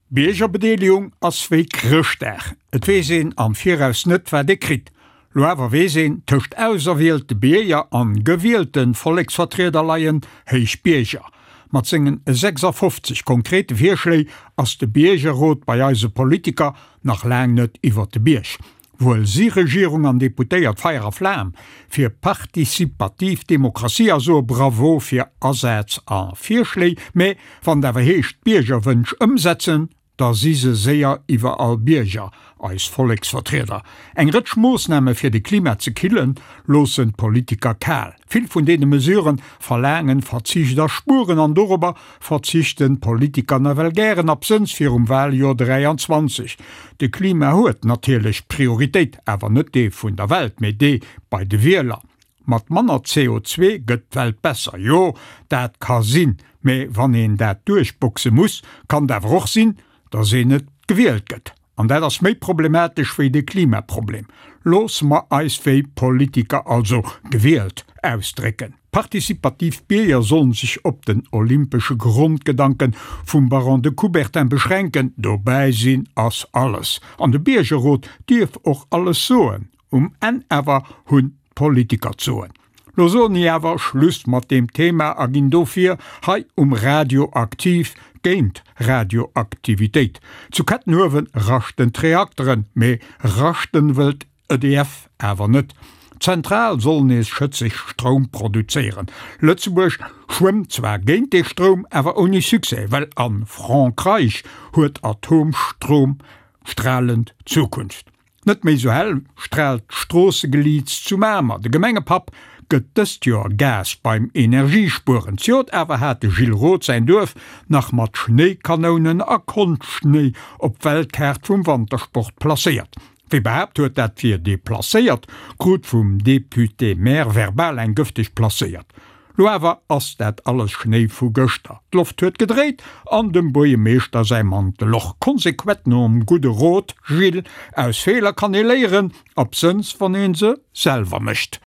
Biergerbedeelegung ass wéi Chrëschtdag, et weess een am Viraus net wat ee kritt. Lo awer weess een, tëscht auserwielte Bierger an gewielte Volleksvertrieder leien héich Bierger. Mat sengen 56 konkrete Virschléi ass de Biergerrot bei eise Politiker nach laang net iwwert de Bierg. Wuel si Regierung an Deputéiert Feier a Flam fir participativ Demokratie a soe Bravo fir Asaz a Virschléi, mä wann et awer heescht d'Biergerwënsch ëmsetzen, da si se séier iwwerall Bierger, eis Volleksvertrieder. Eng Rëtsch Moossname fir de Klima ze killen, loossen d'Politiker kal. Vill vun deene Mesurë verlaangen Verzicht a Spueren an dorobber verzichten d'Politiker nawell gären, absënns virum Wahljoer 23. De Klima huet natierlech Prioritéit, awer net dee vun der Welt, mee dee bei de Wieler. Mat manner CO2 gëtt d'Welt besser, jo, dat ka sinn, mee wann een dat duerchboxe muss, kann et awer och sinn, dass een net gewielt gëtt. An dat ass méi problematesch wéi de Klimaproblem. Loosse mer eis wéi Politiker, also gewielt, ausdrécken. Participativ Bierger sollen sech op den olympesche Grondgedanken vum Baron de Coubertin beschränken, dobäi sinn ass alles. An de Biergerrot dierf och alles soen. Um Enn awer hunn d'Politiker d'Soen. Lo soen i awer Schluss mat deem Thema a ginn dofir hei um Radio aktiv géint Radioaktivitéit. Zu Kettenhuewen raschten d'Reakteren, mee raschten wëllt EDF awer net. D'Zentral soll nees schëtzeg Stroum produzéieren. Lëtzebuerg schwëmmt zwar géint dee Stroum, awer ouni Succès, well a Frankreich huet Atomstroum stralend Zukunft. Net méi sou hell straalt d'Stroossegeliits zu Mamer. De Gemengepapp gëtt dëst Joer Gas beim Energiespueren. Zejoert awer hat de Gilles Roth säin Duerf nach mat Schnéikanounen a Konschtschnéi op d'Weltkaart vum Wantersport placéiert. Wie behaapt huet, dat wier deplacéiert, krut vum Député-maire verbal eng gëfteg placéiert. Lo awer ass dat alles Schnéi vu gëschter, d'Loft huet gedréit an dem Buerjemeeschter säi Mantel och. Konsequent nom gudde Rot, Gilles, aus Feeler kann ee léieren, absënns wann een se selwer mécht.